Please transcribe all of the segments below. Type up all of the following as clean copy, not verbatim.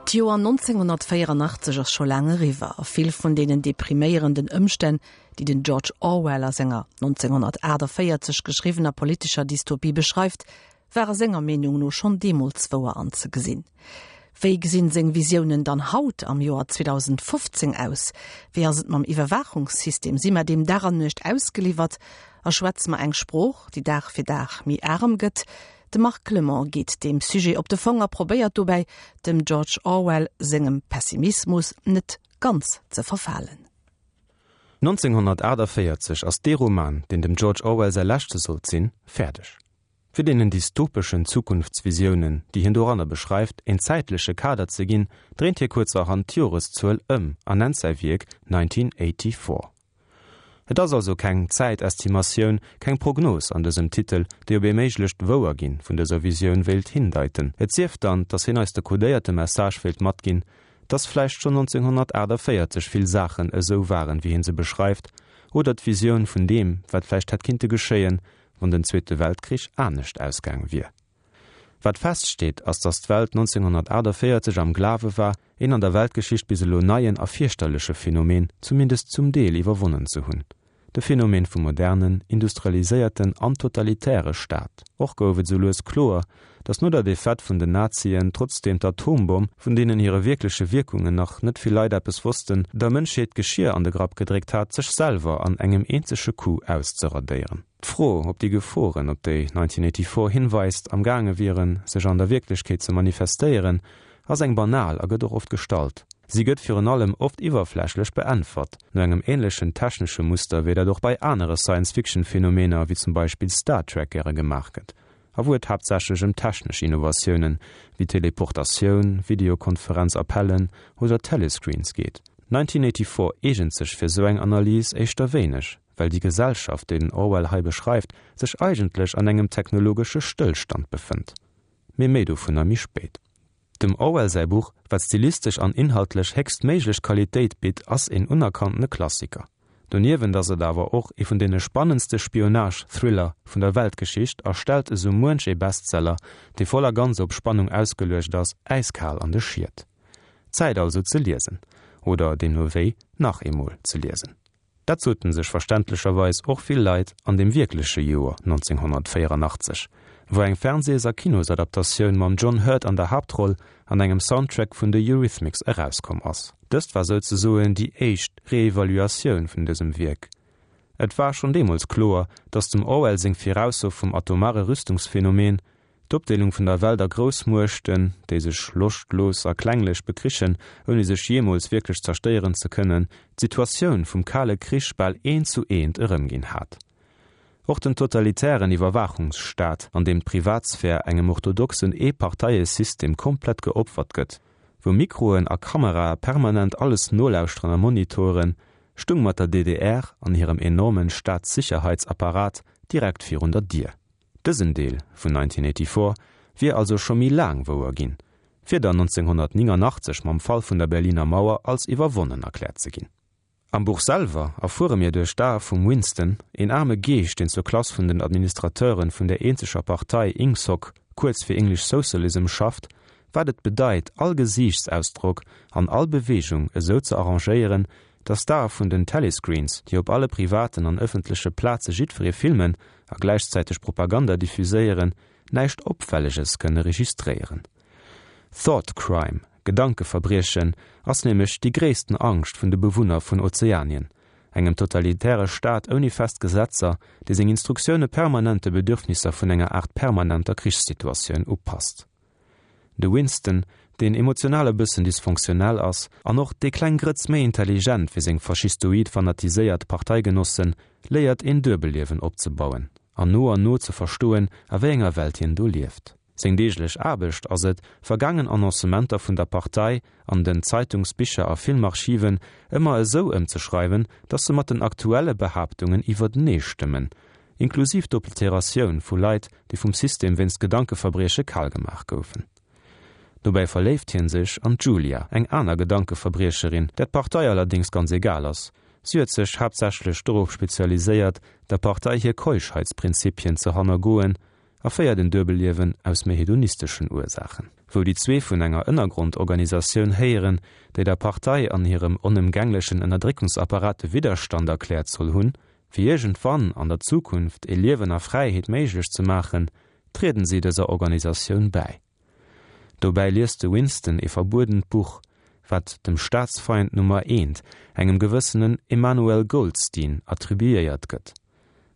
D'Joer 1984 ass scho laang eriwwer a vill vun deenen depriméierenden Ëmstänn, déi den George Orwell a senger 1948 geschriwwener politescher Dystopie beschreift, ware senger Meenung no schonn deemools wouer anzegesinn. Wéi gesinn seng Visiounen dann haut am Joer 2015 aus? Wéi ass et mam Iwwerwaachungssystem? Si mer deem Dag an Nuecht ausgeliwwert a schwätze mer eng Sprooch, déi Dag fir Dag méi arem gëtt? De Marc Clement geet deem Sujet op de Fong a probéiert dobäi, dem George Orwell sengem Pessimismus net ganz ze verfalen. 1948 ass dee Roman, deen dem George Orwell säi leschte sollt sinn, fäerdeg. Fir deenen dystopeschen Zukunftsvisiounen, déi hien doranner beschreift, een zäitleche Kader ze ginn, dréint hie kuerzerhand d'Joreszuel ëm a nennt säi Wierk 1984. Et ass also keng Zäitestimatioun, keng Prognos an dësem Titel, déi op ee méiglecht Wouerginn vun dëser Visioun wéilt hindeiten. Et sief dann, dass hien eis de kodéierte Message wéilt matginn, dass vläicht schonn 1948 vill Saachen esou waren, wéi hien se beschreift, oder d'Visioun vun deem, wat vläicht hätt kinnte geschéien, wann den Zweete Weltkrich anescht ausgaang wier. Wat feststeet, ass, datt d'Welt 1948 am Glawe war, een an der Weltgeschicht bis elo neien a fierchterleche Phänomen zumindest zum Deel iwwerwonnen ze hunn, de Phänomen vum modernen, industrialiséierten an totalitäre Staat. Och gouf et esou lues kloer, datt no der Defaite vun den Nazien trotzdeem d'Atombomm, vun deenen hire wierkleche Wierkungen nach net vill Leit eppes wossten, der Mënschheet d'Geschier an de Grapp gedréckt hat, sech selwer an engem eenzege Coup auszeradéieren. D'Fro, ob déi Geforen, op déi 1984 hinweist, am gaange wieren, sech an der Wierklechkeet ze manifestéieren, ass eng banal a gëtt och oft gestallt. Si gëtt virun allem oft iwwerflächlech beäntwert, no engem änlechen technesche Muster, wéi dat och bei anere Science-Fiction-Phänomener, wéi zum Beispill Star Trek, gäre gemaach gëtt, a wou et haaptsächlech ëm technesch Innovatiounen, wéi Teleportatioun, Videokonferenz-Appellen oder Telescreens geet. 1984 eegent sech fir sou eng Analys éischter wéineg. well déi Gesellschaft, déi den Orwell hei beschreift, sech eigentlech an engem technologesche Stëllstand befënnt. Mee méi dovunner méi spéit. Dem Orwell säi Buch, wat stilistesch an inhaltlech héchstméiglech Qualitéit bitt, ass een unerkanntene Klassiker. Doniewent ass et awer och ee vun deene spannendste Spionage-Thriller vun der Weltgeschicht a stellt esou muench ee Bestseller, dee voll a ganz op Spannung ausgeluecht ass, äiskal an de Schiet. Zäit also ze liesen. Oder deemno wéi nach eemol ze liesen. Dat soten sech verständlecherweis och vill Leit an dem wierkleche Joer 1984, wou eng Fernsees a Kinosadaptatioun mam John Hurt an der Haaptroll an engem Soundtrack vun de Eurythmics erauskomm ass. Dëst war souzesoen déi éischt Reevaluatioun vun dësem Wierk. Et war schonn deemools kloer, datt dem Orwell seng Virausso vum atomare Rüstungsphänomen D'Opdeelung vun der Welt a Groussmuechten, déi sech loschtlos a klenglech bekrichen, ouni sech jeemools wierklech zerstéieren ze kënnen, d'Situatioun vum Kale Krich bal eent zu eent erëmginn hat. Och den totalitären Iwwerwaachungsstaat, an deem d'Privatsphär engem orthodoxen Eeparteiesystem komplett geopfert gëtt, wou Mikroen a Kamerae permanent alles nolauschteren a monitoren, stung mat der DDR an hirem enormen Staatssicherheitsapparat direkt virun der Dier. Dësen Deel vun 1984 wier also scho méi laang wouer ginn, fir dann 1989 mam Fall vun der Berliner Mauer als iwwerwonnen erkläert ze ginn. Am Buch selwer erfuere mir duerch d'Ae vum Winston, een aarme Geescht, deen zur Klass vun den Administrateuren vun der eenzeger Partei Ingsoc, kuerz fir English Socialism, schafft, wat et bedeit, all Gesiichtsausdrock an all Beweegung esou ze arrangéieren, dass d'Ae vun den Telescreens, déi op alle privaten an ëffentleche Plaze jiddweree filmen a gläichzäiteg Propaganda diffuséieren, näischt Opfälleges kënne registréieren. Thought Crime, Gedankeverbriechen, ass nämlech déi gréissten Angscht vun de Bewunner vun Ozeanien, engem totalitäre Staat ouni fest Gesetzer, dee seng Instruktioune permanent de Bedürfnisser vun enger Aart permanenter Krichssituatioun upasst. De Winston, deen emotional e bëssen dysfonctionnel ass an och déi kleng Grëtz méi intelligent wéi seng faschistoid fanatiséiert Parteigenossen, léiert een Duebelliewen opzebauen an no an no ze verstoen, a wéi enger Welt hien do lieft. Seng deeglech Aarbecht ass et, vergaangen Annoncementer vun der Partei an den Zeitungs-, Bicher a Filmarchiven ëmmer esou ëmzeschreiwen, dass se mat den aktuelle Behaaptungen iwwertenee stëmmen, inklusiv d'Obliteratioun vu Leit, déi vum System wéinst Gedankeverbrieche kal gemaach goufen. Dobäi verléift hien sech an d'Julia, eng aner Gedankeverbriecherin, där d'Partei allerdéngs ganz egal ass. Si huet sech haaptsächlech dorop spezialiséiert, der Partei hir Keuschheitsprinzipien ze hannergoen. a féiert en Duebelliewen aus méi hedonisteschen Ursaachen. Wou déi zwee vun enger Ënnergrondorganisatioun héieren, déi der Partei an hirem onëmgänglechen Ënnerdréckungsapparat de Widderstand erkläert soll hunn, fir iergendwann an der Zukunft e Liewen a Fräiheet méiglech ze maachen, trieden si dëser Organisatioun bäi. Dobäi liest de Winston ee verbuedent Buch, wat dem Staatsfeind Nummer eent, engem gewëssenen Emmanuel Goldstein, attribuéiert gëtt,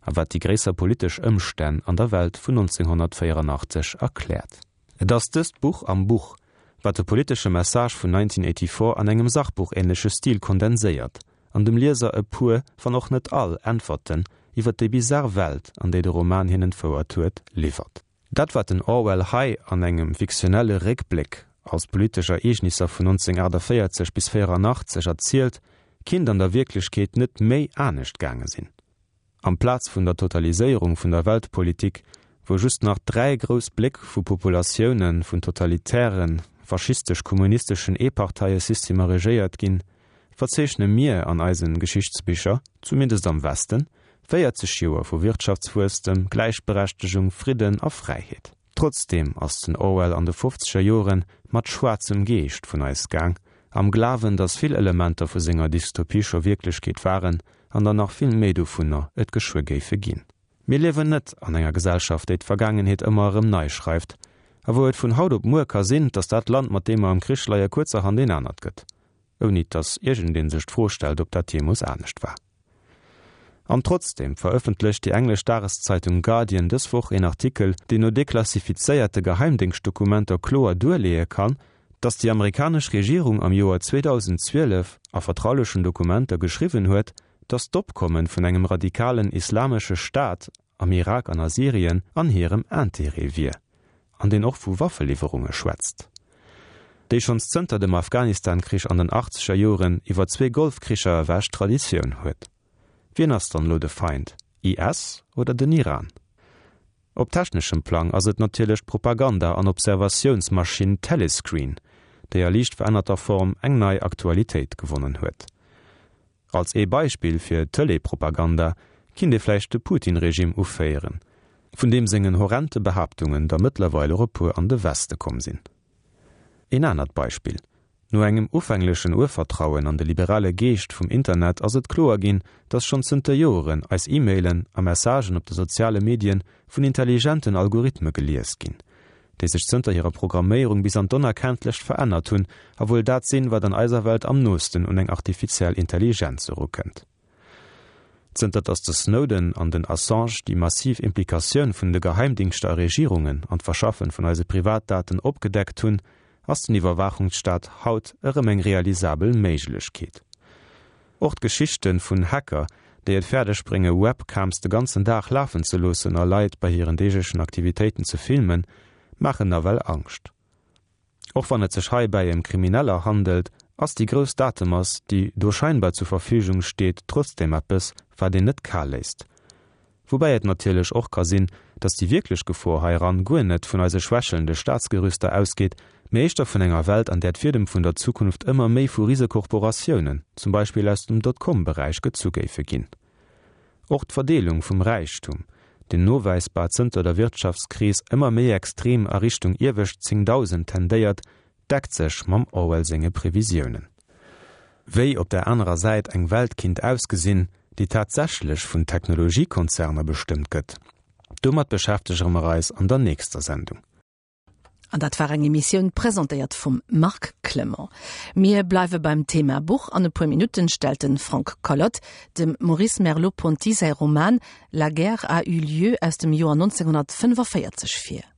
a wat déi gréisser politesch Ëmstänn an der Welt vun 1984 erkläert. Et ass dëst Buch am Buch, wat de politesche Message vun 1984 an engem Sachbuchähnleche Stil kondenséiert an dem Lieser e puer, wann och net all, Äntwerten iwwer déi bizar Welt, an déi de Roman hien entfouert huet, liwwert. Dat wat den Orwell hei an engem fiktionelle Réckbléck als politesch Ereegnisser vun 1948 bis 84 erzielt, kinnt an der Wierklechkeet net méi anescht gaange sinn. Amplaz vun der Totaliséierung vun der Weltpolitik, wou just nach 3 grouss Bléck vu Populatioune vun totalitären, faschistesch-kommunisteschen Eeparteiesystemer regéiert ginn, verzeechne mir an eisen Geschichtsbicher, zumindest am Westen, 40 Joer vu Wirtschaftswuesstem, Gläichberechtegung, Fridden a Fräiheet. Trotzdeem ass den Orwell an de fofzeger Joren mat schwaarzem Geescht vun eis gaang, am Glawen, datt vill Elementer vu senger Dystopie scho Wierklechkeet waren an der nach vill méi dovunner et geschwë géife ginn. Mir liewen net an enger Gesellschaft, déi d'Vergaangenheet ëmmer erëm nei schreift a wou et vun haut op muer ka sinn, datt dat Land, mat deem mer am Krich leie, kuerzerhand een anert gëtt, ouni datt iergendee sech d'Fro stellt, ob dat jeemools anescht war. An trotzdeem verëffentlecht déi englesch Dageszeitung Guardian dës Woch een Artikel, deen no deklassifizéierte Geheimdéngschtdokumenter kloer duerleeë kann, datt déi amerikanesch Regierung am Joer 2012 a vertraulechen Dokumenter geschriwwen huet, datt d'Opkomme vun engem radikalen islamesche Staat am Irak an a Syrien an hirem Intérêt wier, an deen och vu Waffeliwwerunge schwätzt, déi schonns zënter dem Afghanistan-Krich an den achtzeger Joren iwwer zwee Golfkricher ewech Traditioun huet. Wien ass dann elo de Feind, IS oder den Iran? Op techneschem Plang ass et natierlech d'Propaganda an Observatiounsmaschinn Telescreen, déi a liicht verännerter Form eng nei Aktualitéit gewonnen huet. Als ee Beispill fir Tëlee-Propaganda kinnt ee vläicht de Putin-Regime uféieren, vun deem sengen horrente Behaaptungen der mëttlerweil och e puer an de Weste komm sinn. Een anert Beispill, No engem ufänglechen Urvertrauen an de liberale Geescht vum Internet ass et kloer ginn, datt schonn zënter Joeren eis E-Mailen a Messagen op de soziale Medien vun intelligenten Algorithme gelies ginn, déi sech zënter hirer Programméierung bis an d'Onerkenntlecht verännert hunn a wuel dat sinn, wat an eiser Welt am noosten un eng artifiziell Intelligenz erukënnt. Zënter datt de Snowden an den Assange déi massiv Implikatioun vun de Geheimdingschter a Regierungen an d'Verschaffen vun eise Privatdaten opgedeckt hunn, ass den Iwwerwaachungsstaat haut erëm eng realisabel Méiglechkeet. Och d'Geschichten vun Hacker, déi et fäerdeg brénge Webcams de ganzen Dag lafen ze loossen a Leit bei hiren deeglechen Aktivitéiten ze filmen, maachen nawell Angscht. Och wann et sech heibäi ëm Krimineller handelt, ass déi grouss Datemass, déi do scheinbar zur Verfügung steet, trotzdeem eppes, wat een net kal léisst. Woubäi et natierlech och ka sinn, datt déi wierklech Gefor heiran guer net vun eise schwächelnde Staatsgerüster ausgeet, mee éischter vun enger Welt, an där d'Fiedem vun der Zukunft ëmmer méi vu Risekorporatiounen, zum Beispill aus dem Dotcom-Beräich, gezu géife ginn. Och d'Verdeelung vum Räichtum, deen nowäisbar zënter der Wirtschaftskris ëmmer méi extrem a Richtung iewescht 10.000 tendéiert, deckt sech mam Orwell senge Previsiounen. Wéi op der anerer Säit eng Welt kinnt ausgesinn, déi tatsächlech vun Technologiekonzerner bestëmmt gëtt, domat beschäftegere mer eis an der nächster Sendung. An dat war eng Emissioun presentéiert vum Marc Clement. Mir bleiwe beim Thema Buch. An e puer Minutten stellt de Frank Collot dem Maurice Merleau-Ponty säi Roman La guerre a eu lieu aus dem Joer 1945 vir.